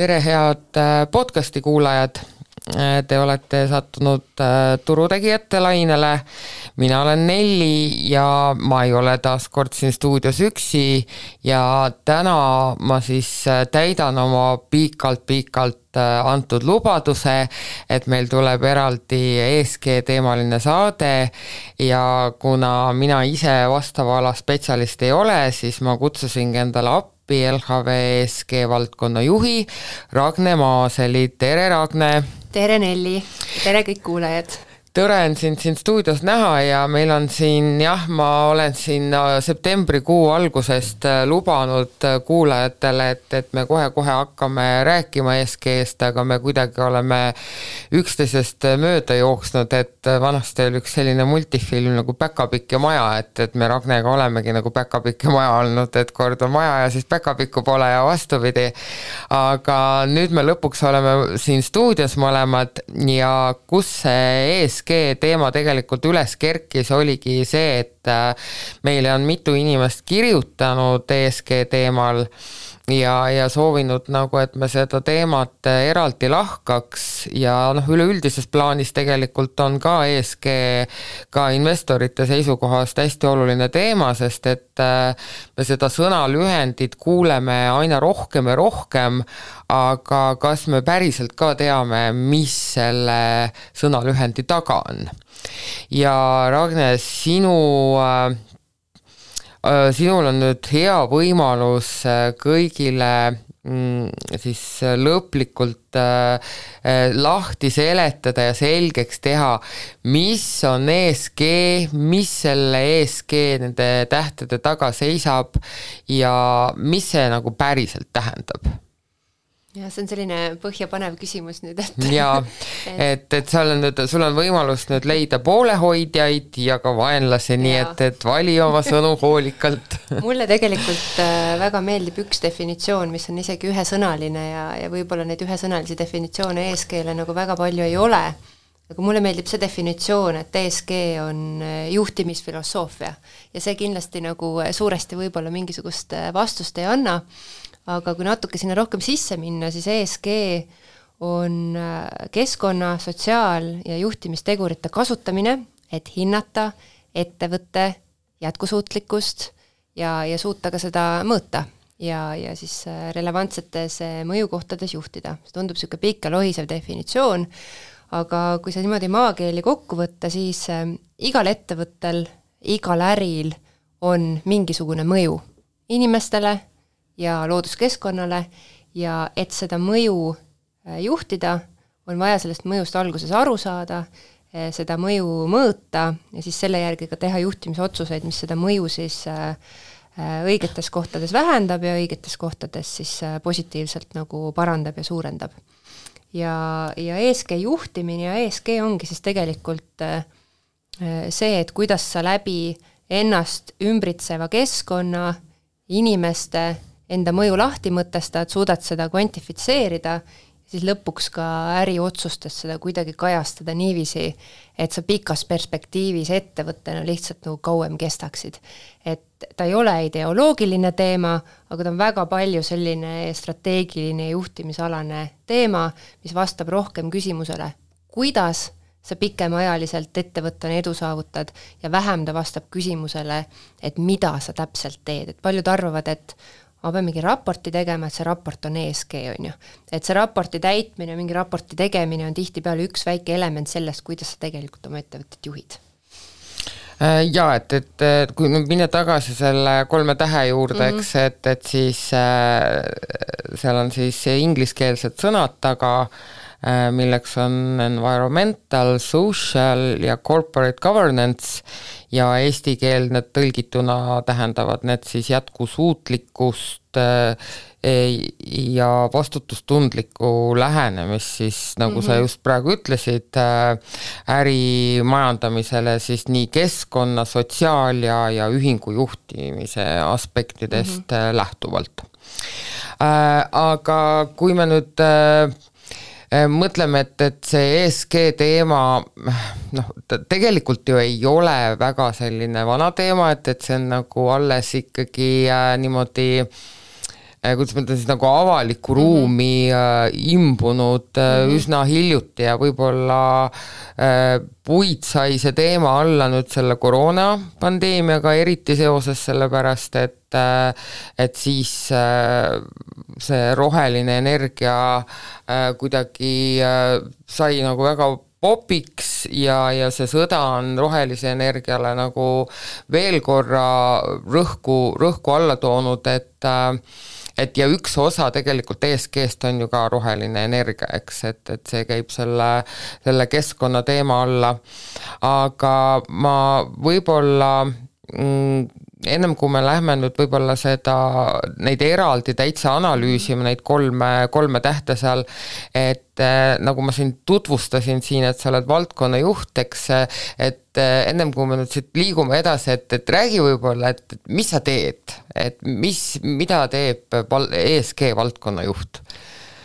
Tere, head podcasti kuulajad. Te olete sattunud turutegijate lainele. Mina olen Nelli ja ma ei ole taas kord siin stuudios üksi ja täna ma siis täidan oma pikalt antud lubaduse, et meil tuleb eraldi ESG teemaline saade ja kuna mina ise vastava ala spetsialist ei ole, siis ma kutsusingi endale appi LHV ESG valdkonna juhi Ragne Maaseli. Tere, Ragne! Tere, Nelli! Tere kõik kuulajad! Tore on siin stuudios näha ja meil on siin, ma olen siin septembrikuu algusest lubanud kuulajatele, et me kohe hakkame rääkima ESG-st, aga me kuidagi oleme üksteisest mööda jooksnud, et vanasti oli üks selline multifilm nagu Päkapikk ja maja, et me Ragnega olemegi nagu Päkapikk ja maja olnud, et kord on maja ja siis Päkapikku pole ja vastupidi. Aga nüüd me lõpuks oleme siin stuudios mõlemad ja kus see ESG teema tegelikult üles kerkis, oligi see, et meile on mitu inimest kirjutanud ESG teemal ja soovinud nagu, et me seda teemat eraldi lahkaks ja üleüldises plaanis tegelikult on ka ESG ka investorite seisukohast hästi oluline teema, sest et me seda sõnalühendit kuuleme aina rohkem ja rohkem, aga kas me päriselt ka teame, mis selle sõnalühendi taga on? Ja Ragne, sinul on nüüd hea võimalus kõigile siis lõplikult lahti seletada ja selgeks teha, mis on ESG, mis selle ESG nende tähtede taga seisab ja mis see nagu päriselt tähendab? Ja see on selline põhjapanev küsimus nüüd, et sul on võimalus nüüd leida poolehoidjaid ja ka vaenlasi, nii et vali oma sõnu hoolikalt. Mulle tegelikult väga meeldib üks definitsioon, mis on isegi ühesõnaline ja võib-olla neid ühesõnalisi definitsioone ESG-le nagu väga palju ei ole. Aga mulle meeldib see definitsioon, et ESG on juhtimisfilosoofia ja see kindlasti nagu suuresti võib-olla mingisugust vastust ei anna. Aga kui natuke sinna rohkem sisse minna, siis ESG on keskkonna, sotsiaal- ja juhtimistegurite kasutamine, et hinnata ettevõtte jätkusuutlikkust ja suuta ka seda mõõta ja siis relevantsetes mõjukohtades juhtida. See tundub selline pikk ja lohisev definitsioon, aga kui see niimoodi maakeeli kokku võtta, siis igal ettevõttel, igal äril on mingisugune mõju inimestele ja looduskeskkonnale ja et seda mõju juhtida, on vaja sellest mõjust alguses aru saada, seda mõju mõõta ja siis selle järgi ka teha juhtimisotsuseid, mis seda mõju siis õigetes kohtades vähendab ja õigetes kohtades siis positiivselt nagu parandab ja suurendab. Ja ESG juhtimine ja ESG ongi siis tegelikult see, et kuidas sa läbi ennast ümbritseva keskkonna, inimeste enda mõju lahti mõtestad, suudad seda kvantifitseerida, siis lõpuks ka äriotsustes seda kuidagi kajastada niiviisi, et sa pikas perspektiivis ettevõttena lihtsalt nagu kauem kestaksid. Et ta ei ole ideoloogiline teema, aga ta on väga palju selline strateegiline juhtimisalane teema, mis vastab rohkem küsimusele, kuidas sa pikemaajaliselt ettevõttena edu saavutad ja vähem ta vastab küsimusele, et mida sa täpselt teed. Et paljud arvavad, et ma pean mingi raporti tegema, et see raport on ESG, on ju. Et see raporti täitmine, mingi raporti tegemine on tihtipeale üks väike element sellest, kuidas sa tegelikult oma ettevõttet juhid. Ja, et kui minna tagasi selle 3 tähe juurde, eks, et siis seal on siis ingliskeelsed sõnad taga, milleks on environmental, social ja corporate governance ja eestikeelne tõlgituna tähendavad need siis jätkusuutlikkust ja vastutustundlikku lähenemist siis, nagu sa just praegu ütlesid, ärimajandamisele siis nii keskkonna, sotsiaal- ja ühingu juhtimise aspektidest lähtuvalt. Aga kui me nüüd mõtleme, et see ESG teema, tegelikult ju ei ole väga selline vana teema, et see on nagu alles ikkagi niimoodi kuidas ma ütlen siis nagu avalikku ruumi imbunud üsna hiljuti ja võib-olla puid sai see teema alla nüüd selle koroonapandeemiaga eriti seoses sellepärast, et siis see roheline energia kuidagi sai nagu väga popiks ja see sõda on rohelise energiale nagu veel korra rõhku alla toonud, et ja üks osa tegelikult ESG-st on ju ka roheline energia, eks, et see käib selle keskkonna teema alla, aga ma võib-olla ennem kui me lähme nüüd võib-olla neid eraldi täitsa analüüsime, neid kolme tähte seal, et nagu ma siin tutvustasin siin, et sa oled valdkonna juht, eks, et ennem kui me nüüd siit liigume edasi, et räägi võib-olla, et mis sa teed, et mida teeb ESG valdkonna juht?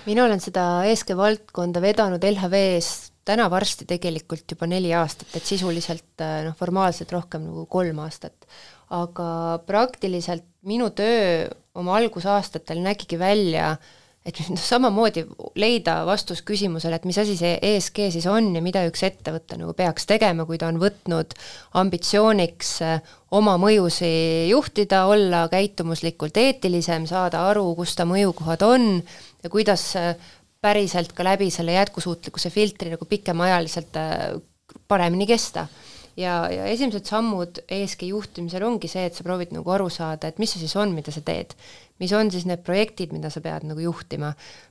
Mina olen seda ESG valdkonda vedanud LHV-s täna varsti tegelikult juba 4 aastat, et sisuliselt formaalselt rohkem nagu 3 aastat. Aga praktiliselt minu töö oma algusaastatel nägigi välja, et samamoodi leida vastus küsimusele, et mis asi see ESG siis on ja mida üks ettevõte nagu peaks tegema, kui ta on võtnud ambitsiooniks oma mõjusi juhtida, olla käitumuslikult eetilisem, saada aru, kus ta mõjukohad on ja kuidas päriselt ka läbi selle jätkusuutlikkuse filtri nagu pikemaajaliselt paremini kesta. Ja esimesed sammud ESG juhtimisel ongi see, et sa proovid nagu aru saada, et mis see siis on, mida sa teed. Mis on siis need projektid, mida sa pead nagu juhtima.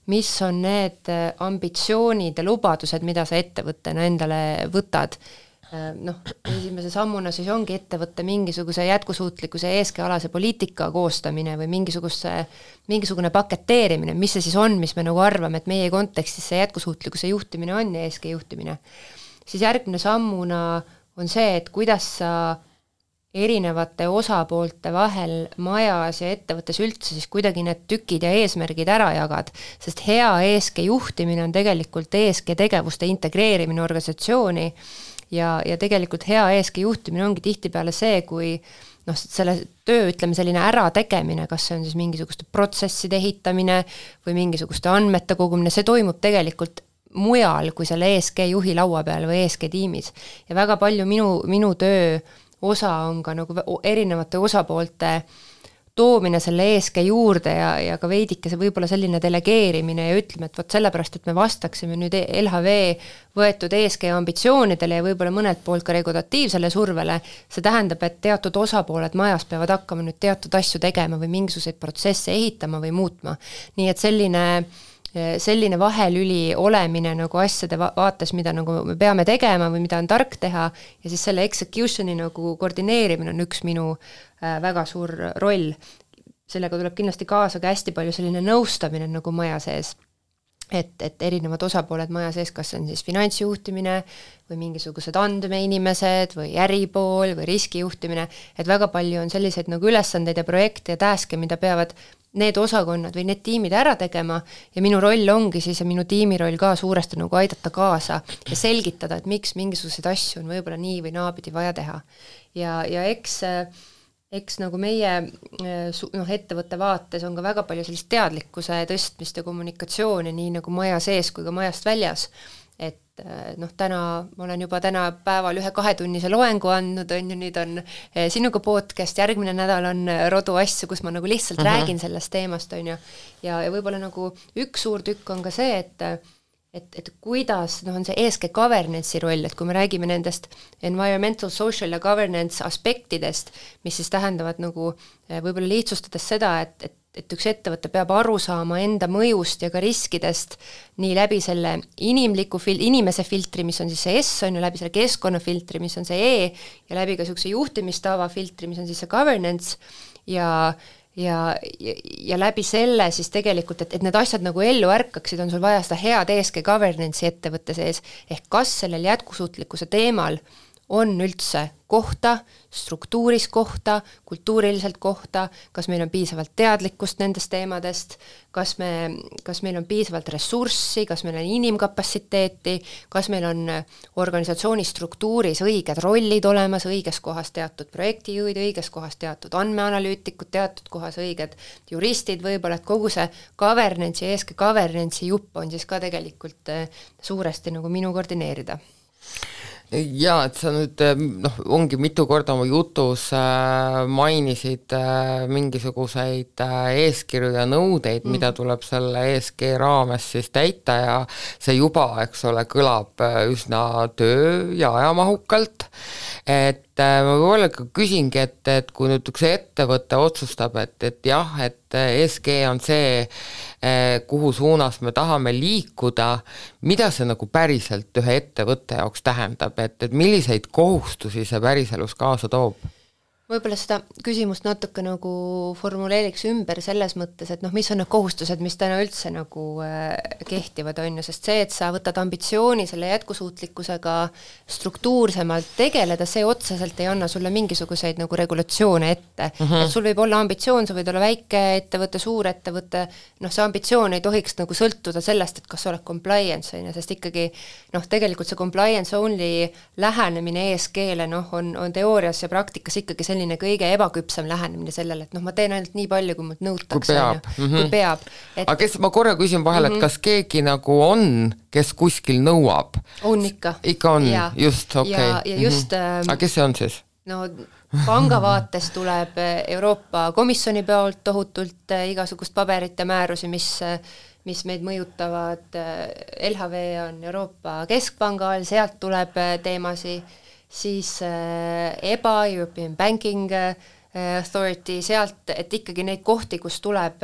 Mis on need ambitsioonid ja lubadused, mida sa ettevõttena endale võtad. Esimese sammuna siis ongi ettevõtte mingisuguse jätkusuutlikkuse ESG-alase poliitika koostamine või mingisugune paketeerimine, mis see siis on, mis me nagu arvame, et meie kontekstis see jätkusuutlikkuse juhtimine on ja ESG juhtimine. Siis järgmine sammuna on see, et kuidas sa erinevate osapoolte vahel majas ja ettevõttes üldse siis kuidagi need tükid ja eesmärgid ära jagad, sest hea ESG juhtimine on tegelikult ESG tegevuste integreerimine organisatsiooni ja tegelikult hea ESG juhtimine ongi tihtipeale see, kui selle töö, ütleme selline ärategemine, kas see on siis mingisuguste protsesside ehitamine või mingisuguste andmete kogumine, see toimub tegelikult mujal kui selle ESG juhi laua peal või ESG tiimis. Ja väga palju minu töö osa on ka nagu erinevate osapoolte toomine selle ESG juurde ja ka veidike see võib-olla selline delegeerimine ja ütleme, et võt sellepärast, et me vastaksime nüüd LHV võetud ESG ambitsioonidele ja võib-olla mõnelt poolt ka regulatiivsele survele, see tähendab, et teatud osapooled majas peavad hakkama nüüd teatud asju tegema või mingisuguseid protsesse ehitama või muutma. Nii et selline vahelüli olemine nagu asjade vaates, mida nagu me peame tegema või mida on tark teha ja siis selle executioni nagu koordineerimine on üks minu väga suur roll. Sellega tuleb kindlasti kaasa ka hästi palju selline nõustamine nagu maja sees, et erinevad osapooled maja sees, kas on siis finantsjuhtimine või mingisugused andmeinimesed või äripool või riskijuhtimine, et väga palju on selliseid nagu ülesandeid ja projekte ja taske, mida peavad need osakonnad või need tiimid ära tegema ja minu roll ongi siis ja minu tiimi roll ka suuresti nagu aidata kaasa ja selgitada, et miks mingisuguseid asju on võib-olla nii või naapidi vaja teha. Ja eks nagu meie ettevõtte vaates on ka väga palju sellist teadlikkuse tõstmist ja kommunikatsiooni nii nagu maja sees kui ka majast väljas. Et täna ma olen juba täna päeval 1-2-tunnise loengu andnud, on ju, nüüd on sinuga podcast, järgmine nädal on rodu asju, kus ma nagu lihtsalt räägin sellest teemast, on ju, ja võib-olla nagu üks suur tükk on ka see, et kuidas on see ESG governance'i roll, et kui me räägime nendest environmental, social ja governance aspektidest, mis siis tähendavad nagu võib-olla lihtsustades seda, et üks ettevõte peab aru saama enda mõjust ja ka riskidest nii läbi selle inimese filtri, mis on siis see S, on ju, läbi selle keskkonnafiltri, mis on see E, ja läbi ka niisuguse juhtimistava filtri, mis on siis see governance, ja läbi selle siis tegelikult, et need asjad nagu ellu ärkaksid, on sul vaja seda head ESG governance'i ettevõtte sees, ehk kas sellel jätkusuutlikkuse teemal on üldse kohta, struktuuris kohta, kultuuriliselt kohta, kas meil on piisavalt teadlikkust nendest teemadest, kas meil on piisavalt ressurssi, kas meil on inimkapatsiteeti, kas meil on organisatsiooni struktuuris õiged rollid olemas, õiges kohas teatud projektijuhid, õiges kohas teatud andmeanalüütikud, teatud kohas õiged juristid võib-olla, et kogu see governance'i, eeske governance'i jupp on siis ka tegelikult suuresti nagu minu koordineerida. Jaa, et sa nüüd ongi mitu korda oma jutus mainisid mingisuguseid eeskirju ja nõudeid, mida tuleb selle ESG raames siis täita ja see juba, eks ole, kõlab üsna töö- ja ajamahukalt, et ma võib-olla küsingi, et kui nüüd üks ettevõte otsustab, et jah, et ESG on see, kuhu suunas me tahame liikuda, mida see nagu päriselt ühe ettevõtte jaoks tähendab, et milliseid kohustusi see päriselus kaasa toob? Võib-olla seda küsimust natuke nagu formuleeriks ümber selles mõttes, et mis on need kohustused, mis täna üldse nagu kehtivad, on ju, sest see, et sa võtad ambitsiooni selle jätkusuutlikkusega struktuursemalt tegeleda, see otseselt ei anna sulle mingisuguseid nagu regulatsioone ette. Et sul võib olla ambitsioon, sa võid olla väike ettevõte, suur ettevõte, see ambitsioon ei tohiks nagu sõltuda sellest, et kas sa oled compliance, sest ikkagi tegelikult see compliance only lähenemine ESG-le on teoorias ja praktikas ikkagi selline kõige ebaküpsem lähenemine sellele, et ma teen ainult nii palju, kui mult nõutakse. Kui peab. Aga kes, ma korra küsin vahel, et kas keegi nagu on, kes kuskil nõuab? On ikka. Ikka on, just, okei. Ja just... Aga kes see on siis? Panga vaates tuleb Euroopa Komisjoni poolt tohutult igasugust paberit ja määrusi, mis meid mõjutavad. LHV on Euroopa Keskpanga all, sealt tuleb teemasi, siis EBA, European Banking Authority, sealt, et ikkagi neid kohti, kus tuleb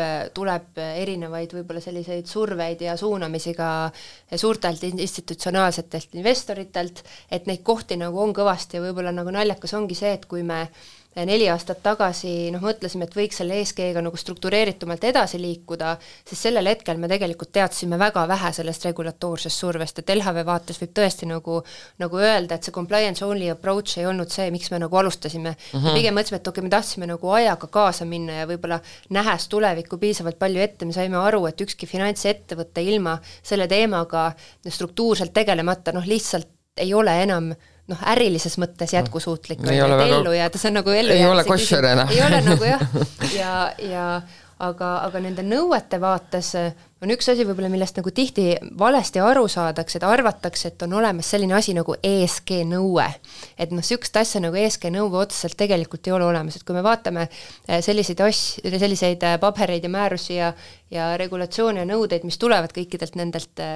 erinevaid võib-olla selliseid surveid ja suunamisi ka suurtelt institutsionaalsetelt investoritelt, et neid kohti nagu on kõvasti ja võib-olla nagu naljakas ongi see, et kui me 4 aastat tagasi mõtlesime, et võiks selle ESG-ga nagu struktureeritumalt edasi liikuda, siis sellel hetkel me tegelikult teadsime väga vähe sellest regulatoorsest survest, et LHV vaates võib tõesti nagu öelda, et see compliance only approach ei olnud see, miks me nagu alustasime. Pigem mõtlesime, et okei, me tahtsime nagu ajaga kaasa minna ja võib-olla nähes tulevikku piisavalt palju ette, me saime aru, et ükski finantsettevõte ilma selle teemaga struktuurselt tegelemata lihtsalt ei ole enam ärilises mõttes jätkusuutlik ellu jääda, see on nagu ellu ei ole koššer enam. Ei ole nagu jah, aga nende nõuete vaates on üks asi võib-olla, millest nagu tihti valesti aru saadakse, et arvatakse, et on olemas selline asi nagu ESG nõue. Et sihukest asja nagu ESG nõue otseselt tegelikult ei ole olemas, et kui me vaatame selliseid pabereid ja määrusi ja regulatsioone ja nõudeid, mis tulevad kõikidelt nendelt,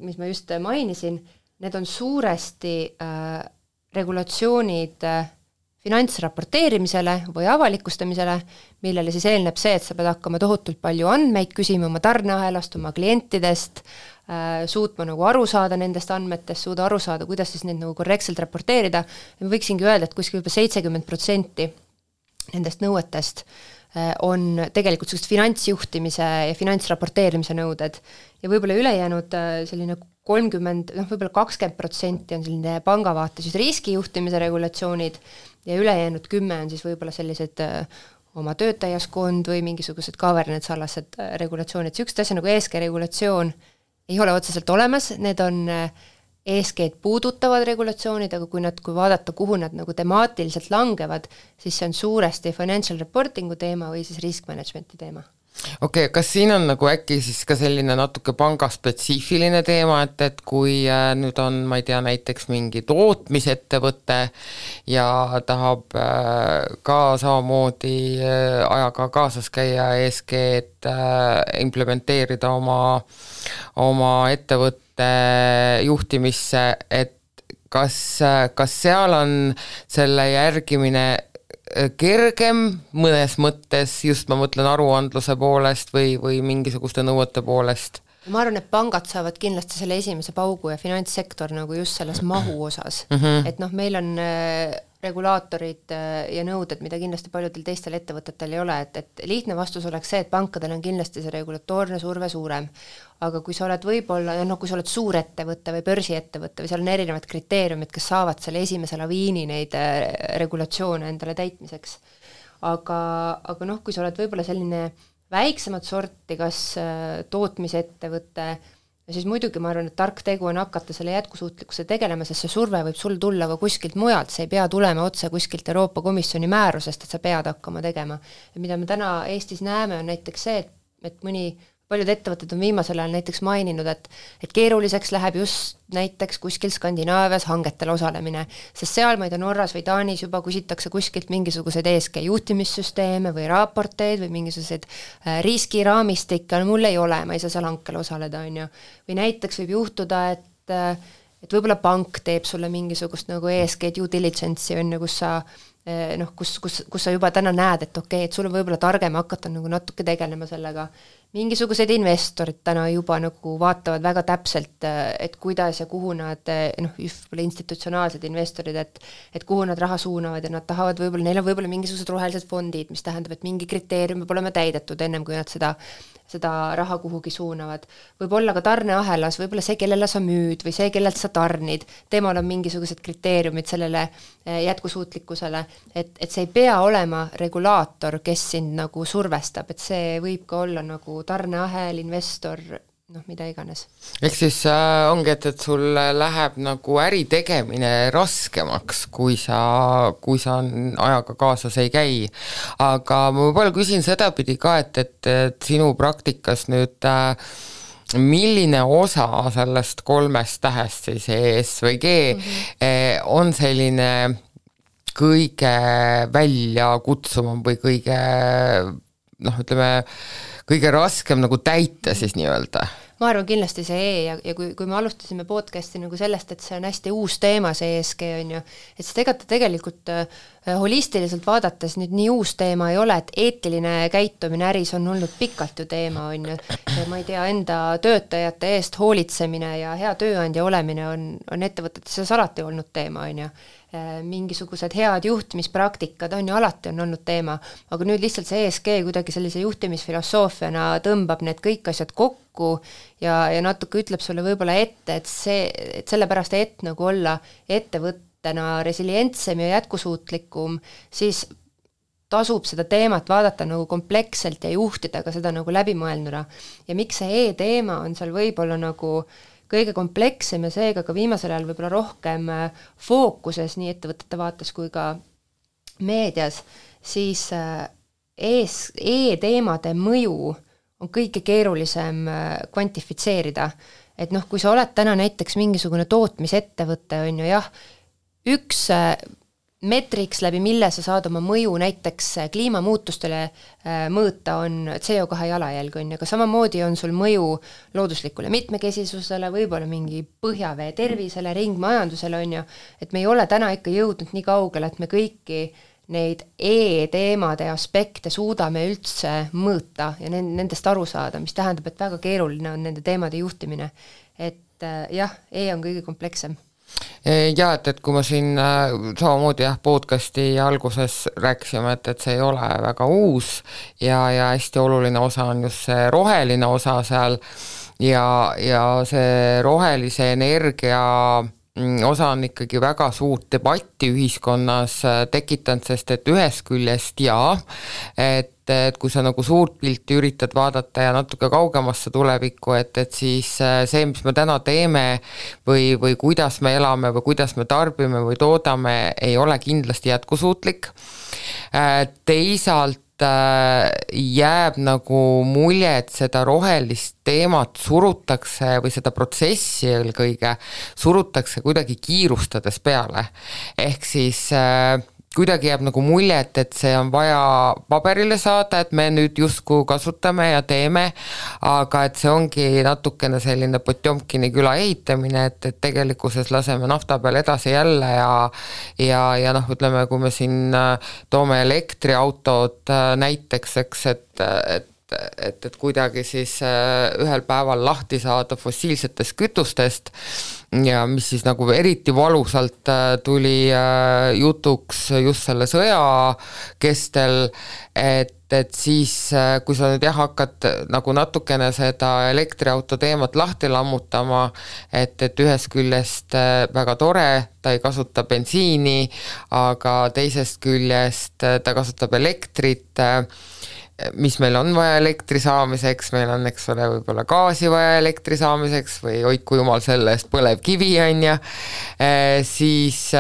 mis ma just mainisin, need on suuresti regulatsioonid finantsraporteerimisele või avalikustamisele, millele siis eelneb see, et sa pead hakkama tohutult palju andmeid küsima oma tarneahelast, oma klientidest, suutma nagu aru saada nendest andmetest, suuda aru saada, kuidas siis neid nagu korrektselt raporteerida. Ja võiksingi öelda, et kuskil juba 70% nendest nõuetest on tegelikult sellist finantsjuhtimise ja finantsraporteerimise nõuded ja võib-olla ülejäänud selline 30, võib-olla 20% on selline pangavaates just riskijuhtimise regulatsioonid ja ülejäänud 10 on siis võib-olla sellised oma töötajaskond või mingisugused governance-alased regulatsioonid. Sihukest asja nagu ESG regulatsioon ei ole otseselt olemas, need on ESG-d puudutavad regulatsioonid, aga kui vaadata, kuhu nad nagu temaatiliselt langevad, siis see on suuresti financial reportingu teema või siis risk managementi teema. Okei, kas siin on nagu äkki siis ka selline natuke pangaspetsiifiline teema, et kui nüüd on, ma ei tea, näiteks mingi tootmisettevõte ja tahab ka samamoodi ajaga kaasas käia ESG-d implementeerida oma ettevõtte juhtimisse, et kas seal on selle järgimine kergem mõnes mõttes, just ma mõtlen aruandluse poolest või mingisuguste nõuete poolest? Ma arvan, et pangad saavad kindlasti selle esimese paugu ja finantssektor nagu just selles mahu osas. Et meil on regulaatorid ja nõuded, mida kindlasti paljudel teistel ettevõtetel ei ole, et lihtne vastus oleks see, et pankadel on kindlasti see regulatoorne surve suurem. Aga kui sa oled võib-olla, kui sa oled suurettevõte või börsiettevõte või seal on erinevad kriteeriumid, kes saavad selle esimese laviini neid regulatsioone endale täitmiseks. Aga kui sa oled võib-olla selline väiksemat sorti, kas tootmisettevõte, ja siis muidugi ma arvan, et tark tegu on hakata selle jätkusuutlikkuse tegelema, sest see surve võib sul tulla ka kuskilt mujalt, see ei pea tulema otse kuskilt Euroopa Komisjoni määrusest, et sa pead hakkama tegema. Ja mida me täna Eestis näeme, on näiteks see, et paljud ettevõtted on viimasel ajal näiteks maininud, et keeruliseks läheb just näiteks kuskil Skandinaavias hangetel osalemine, sest seal, ma ei tea, Norras või Taanis juba küsitakse kuskilt mingisuguseid ESG juhtimissüsteeme või raporteid või mingisuguseid riskiraamistikke, mul ei ole, ma ei saa seal hankel osaleda, on ju. Või näiteks võib juhtuda, et võib-olla pank teeb sulle mingisugust nagu ESG due diligence'i, on ju, kus sa juba täna näed, et okei, et sul on võib-olla targem hakata nagu natuke tegelema sellega. Mingisugused investorid täna juba nagu vaatavad väga täpselt, et kuidas ja kuhu nad, institutsionaalsed investorid, et kuhu nad raha suunavad ja nad tahavad võib-olla, neil on võib-olla mingisugused rohelised fondid, mis tähendab, et mingi kriteerium peab olema täidetud ennem, kui nad seda raha kuhugi suunavad. Võib-olla ka tarneahelas, võib-olla see, kellele sa müüd või see, kellelt sa tarnid, temal on mingisugused kriteeriumid sellele jätkusuutlikkusele, et see ei pea olema regulaator, kes sind nagu survestab, et see võib ka olla nagu tarneahel, investor, mida iganes. Ehk siis ongi, et sul läheb nagu äri tegemine raskemaks, kui sa ajaga kaasas ei käi. Aga ma võib-olla küsin sedapidi ka, et sinu praktikas nüüd milline osa sellest 3 tähest, siis ES või G, on selline kõige väljakutsuvam või kõige, kõige raskem nagu täita siis nii-öelda? Ma arvan kindlasti see ja kui me alustasime podcasti nagu sellest, et see on hästi uus teema, see ESG on ju, et see tegelikult holistiliselt vaadates nüüd nii uus teema ei ole, et eetiline käitumine äris on olnud pikalt ju teema, on ju. Ma ei tea, enda töötajate eest hoolitsemine ja hea tööandja olemine on ettevõtetes alati olnud teema, on ju. Mingisugused head juhtimispraktikad on ju alati on olnud teema, aga nüüd lihtsalt see ESG kuidagi sellise juhtimisfilosoofiana tõmbab need kõik asjad kokku ja natuke ütleb sulle võib-olla ette, et sellepärast nagu olla ettevõttena resilientsem ja jätkusuutlikum, siis tasub seda teemat vaadata nagu kompleksselt ja juhtida ka seda nagu läbimõelnuna. Ja miks see E-teema on seal võib-olla nagu kõige komplekssem ja seega ka viimasel ajal võib-olla rohkem fookuses nii ettevõtete vaates kui ka meedias, siis E-teemade mõju on kõige keerulisem kvantifitseerida. Et kui sa oled täna näiteks mingisugune tootmisettevõte, on ju jah, üks metriks läbi, mille sa saad oma mõju näiteks kliimamuutustele mõõta on CO2 jalajälg, on ju, aga samamoodi on sul mõju looduslikule mitmekesisusele, võib-olla mingi põhjavee tervisele, ringmajandusele, on ju, et me ei ole täna ikka jõudnud nii kaugele, et me kõiki neid E-teemade aspekte suudame üldse mõõta ja nendest aru saada, mis tähendab, et väga keeruline on nende teemade juhtimine. Et jah, E on kõige komplekssem. Ja, et kui ma siin samamoodi podcasti alguses rääkisime, et see ei ole väga uus ja hästi oluline osa on just see roheline osa seal ja see rohelise energia osa on ikkagi väga suurt debatti ühiskonnas tekitanud, sest et ühest küljest et kui sa nagu suurt pilti üritad vaadata ja natuke kaugemasse tulevikku, et siis see, mis me täna teeme või kuidas me elame või kuidas me tarbime või toodame, ei ole kindlasti jätkusuutlik. Teisalt jääb nagu mulje, et seda rohelist teemat surutakse või seda protsessi eelkõige surutakse kuidagi kiirustades peale. Ehk siis kuidagi jääb nagu mulje, et see on vaja paberile saada, et me nüüd justkui kasutame ja teeme, aga et see ongi natukene selline Potjomkini küla ehitamine, et tegelikkuses laseme nafta peal edasi jälle ja ütleme, kui me siin toome elektriautod näiteks, eks, et et kuidagi siis ühel päeval lahti saada fossiilsetest kütustest ja mis siis nagu eriti valusalt tuli jutuks just selle sõja kestel, et siis, kui sa nüüd hakkad nagu natukene seda elektriauto teemat lahti lammutama, et ühest küljest väga tore, ta ei kasuta bensiini, aga teisest küljest ta kasutab elektrit, mis meil on vaja elektri saamiseks, meil on, eks ole, võib-olla gaasi vaja elektri saamiseks või hoidku jumal selle eest põlevkivi on ja siis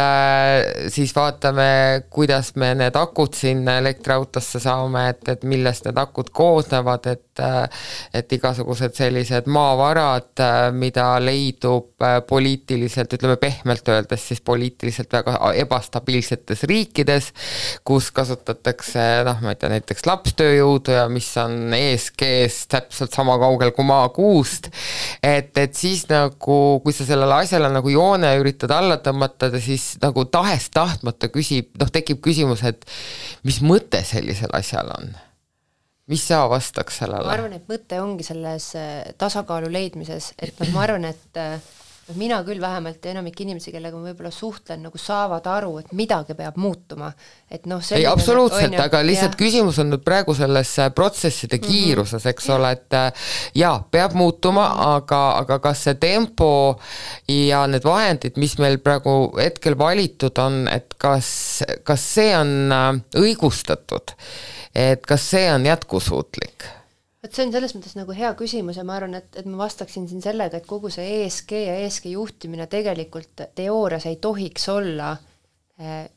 vaatame, kuidas me need akud sinna elektriautosse saame, et millest need akud koosnevad, et igasugused sellised maavarad, mida leidub poliitiliselt, ütleme pehmelt öeldes siis poliitiliselt väga ebastabiilsetes riikides, kus kasutatakse, ma ei tea, näiteks lapstööjõudu ja mis on ESG-s täpselt sama kaugel kui maakuust, et siis nagu, kui sa sellele asjale nagu joone üritad alla tõmmata, siis nagu tahes-tahtmata tekib küsimus, et mis mõte sellisel asjal on? Mis sa vastaks sellele? Ma arvan, et mõte ongi selles tasakaalu leidmises, et ma arvan, et mina küll vähemalt ja enamik inimesi, kellega ma võib-olla suhtlen, nagu saavad aru, et midagi peab muutuma. Et ei, absoluutselt, aga lihtsalt küsimus on nüüd praegu selles protsesside kiiruses, eks ole, et jaa, peab muutuma, aga kas see tempo ja need vahendid, mis meil praegu hetkel valitud on, et kas see on õigustatud, et kas see on jätkusuutlik? Et see on selles mõttes nagu hea küsimus ja ma arvan, et ma vastaksin siin sellega, et kogu see ESG ja ESG juhtimine tegelikult teoorias ei tohiks olla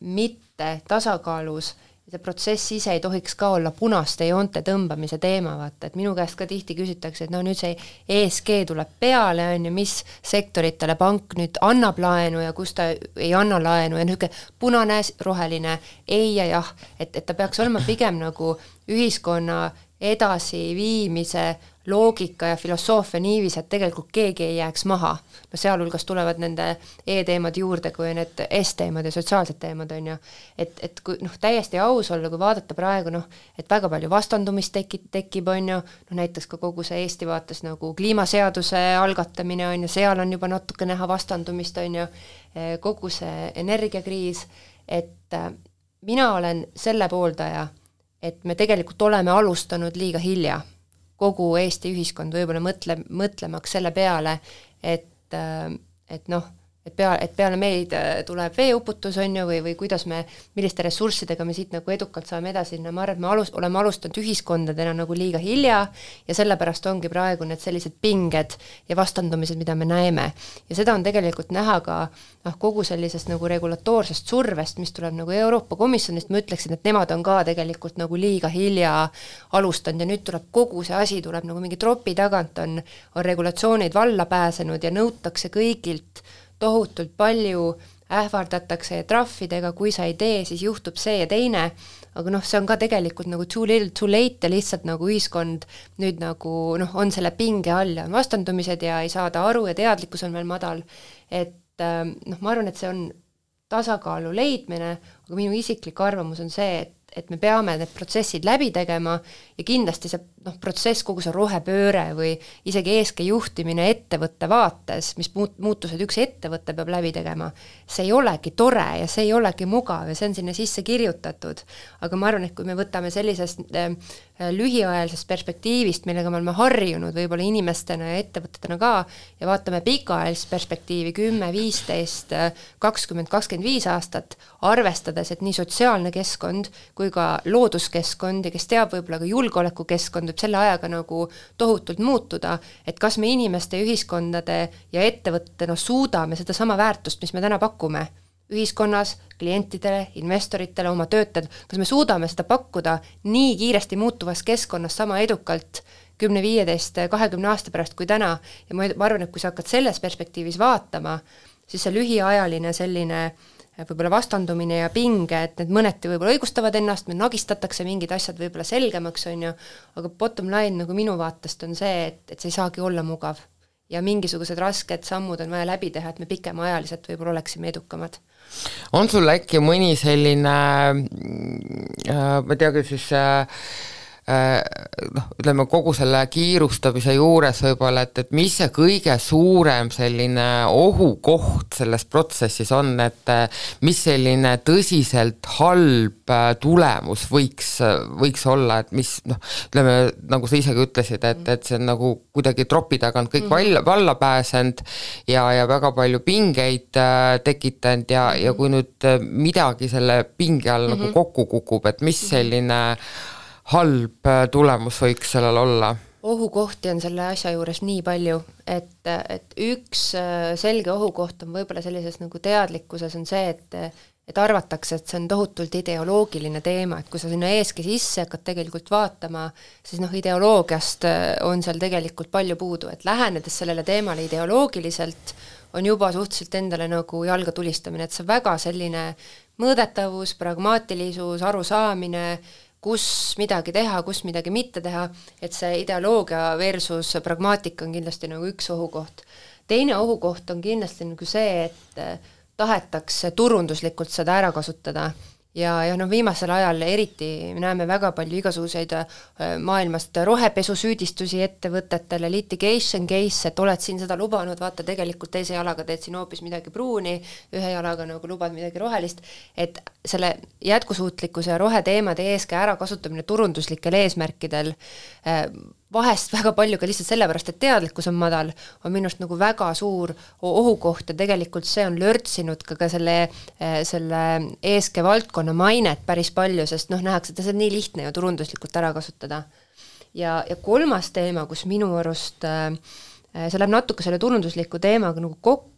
mitte tasakaalus ja see protsess ise ei tohiks ka olla punaste joonte tõmbamise teema, vaata, et minu käest ka tihti küsitakse, et nüüd see ESG tuleb peale, on ju, mis sektoritele pank nüüd annab laenu ja kus ta ei anna laenu ja niisugune punane, roheline, ei ja jah, et ta peaks olema pigem nagu ühiskonna edasiviimise loogika ja filosoofia niivis, et tegelikult keegi ei jääks maha. No sealhulgas tulevad nende E-teemad juurde, kui need S-teemad ja sotsiaalsed teemad on ju. Et kui täiesti aus olla, kui vaadata praegu, et väga palju vastandumist tekib on ju, näiteks ka kogu see Eesti vaates nagu kliimaseaduse algatamine on ju, seal on juba natuke näha vastandumist on ju, kogu see energiakriis, et mina olen selle pooldaja, et me tegelikult oleme alustanud liiga hilja. Kogu Eesti ühiskond võib-olla mõtlemaks selle peale, et peale meid tuleb veeuputus on ju, või kuidas milliste ressurssidega me siit nagu edukalt saame edasi, ma arvan, et me oleme alustanud ühiskondadena nagu liiga hilja ja sellepärast ongi praegu need sellised pinged ja vastandumised, mida me näeme. Ja seda on tegelikult näha ka kogu sellisest nagu regulatoorsest survest, mis tuleb nagu Euroopa Komisjonist, ma ütleksin, et nemad on ka tegelikult nagu liiga hilja alustanud ja nüüd tuleb kogu see asi, tuleb nagu mingi tropi tagant on regulatsioonid valla pääsenud ja nõutakse kõigilt tohutult palju, ähvardatakse trahvidega, kui sa ei tee, siis juhtub see ja teine, aga see on ka tegelikult nagu too little too late ja lihtsalt nagu ühiskond nüüd nagu on selle pinge all ja on vastandumised ja ei saada aru ja teadlikkus on veel madal, et ma arvan, et see on tasakaalu leidmine, aga minu isiklik arvamus on see, et me peame need protsessid läbi tegema ja kindlasti see protsess, kogu see rohepööre või isegi ESG juhtimine ettevõtte vaates, mis muutused üks ettevõte peab läbi tegema, see ei olegi tore ja see ei olegi mugav ja see on sinna sisse kirjutatud. Aga ma arvan, et kui me võtame sellisest lühiajalisest perspektiivist, millega me oleme harjunud võib-olla inimestena ja ettevõtetena ka ja vaatame pikaajalist perspektiivi 10, 15, 20, 25 aastat, arvestades, et nii sotsiaalne keskkond kui ka looduskeskkond ja kes teab võib-olla ka julgeolekukeskkond võib selle ajaga nagu tohutult muutuda, et kas me inimeste, ühiskondade ja ettevõtetena suudame seda sama väärtust, mis me täna pakume ühiskonnas, klientidele, investoritele, oma töötajad, kas me suudame seda pakkuda nii kiiresti muutuvas keskkonnas sama edukalt 10, 15, 20 aasta pärast kui täna ja ma arvan, et kui sa hakkad selles perspektiivis vaatama, siis see lühiajaline selline võib-olla vastandumine ja pinge, et need mõneti võib-olla õigustavad ennast, me nagistatakse mingid asjad võib-olla selgemaks, on ju, aga bottom line nagu minu vaatest on see, et see ei saagi olla mugav. Ja mingisugused rasked sammud on vaja läbi teha, et me pikemaajaliselt võib-olla oleksime edukamad. On sul äkki mõni selline, ma teagi siis ütleme kogu selle kiirustamise juures võib-olla, et mis see kõige suurem selline ohukoht selles protsessis on, et mis selline tõsiselt halb tulemus võiks olla, et mis ütleme, nagu sa isegi ütlesid, et see on nagu kuidagi tropi tagant kõik valla pääsenud ja väga palju pingeid tekitanud ja kui nüüd midagi selle pinge all nagu kokku kukub, et mis selline halb tulemus võiks sellel olla? Ohukohti on selle asja juures nii palju, et üks selge ohukoht on võib-olla sellises nagu teadlikkuses on see, et arvatakse, et see on tohutult ideoloogiline teema, et kui sa sinna eeski sisse hakkad tegelikult vaatama, siis ideoloogiast on seal tegelikult palju puudu, et lähenedes sellele teemale ideoloogiliselt on juba suhteliselt endale nagu jalga tulistamine, et see väga selline mõõdetavus, pragmaatilisus, arusaamine, kus midagi teha, kus midagi mitte teha, et see ideoloogia versus pragmaatika on kindlasti nagu üks ohukoht. Teine ohukoht on kindlasti nagu see, et tahetakse turunduslikult seda ära kasutada ja viimasel ajal eriti me näeme väga palju igasuguseid maailmast rohepesusüüdistusi ettevõtetele, litigation case, et oled siin seda lubanud, vaata tegelikult teise jalaga teed siin hoopis midagi pruuni, ühe jalaga nagu lubad midagi rohelist, et selle jätkusuutlikkuse ja roheteemade eeskäe ära kasutamine turunduslikel eesmärkidel vahest väga palju ka lihtsalt sellepärast, et teadlikkus on madal, on minust nagu väga suur ohukoht ja tegelikult see on lörtsinud ka selle eeske valdkonna mainet päris palju, sest nähakse, et see on nii lihtne ju turunduslikult ära kasutada. Ja kolmas teema, kus minu arust see läheb natuke selle turundusliku teemaga nagu kokku,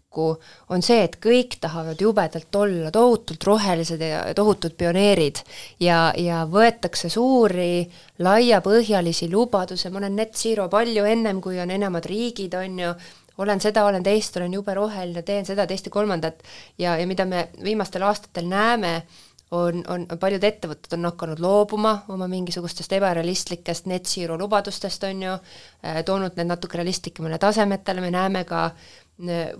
on see, et kõik tahavad jubedalt olla tohutult rohelised ja tohutult pioneerid ja võetakse suuri laiapõhjalisi lubaduse, ma olen net zero palju ennem, kui on enamad riigid, on ju, olen seda, olen teist, olen jube roheline, teen seda, teist ja kolmandat ja mida me viimastel aastatel näeme, on paljud ettevõtted on hakanud loobuma oma mingisugustest ebarealistlikest net zero lubadustest, on ju, toonud need natuke realistlikemale tasemetele, me näeme ka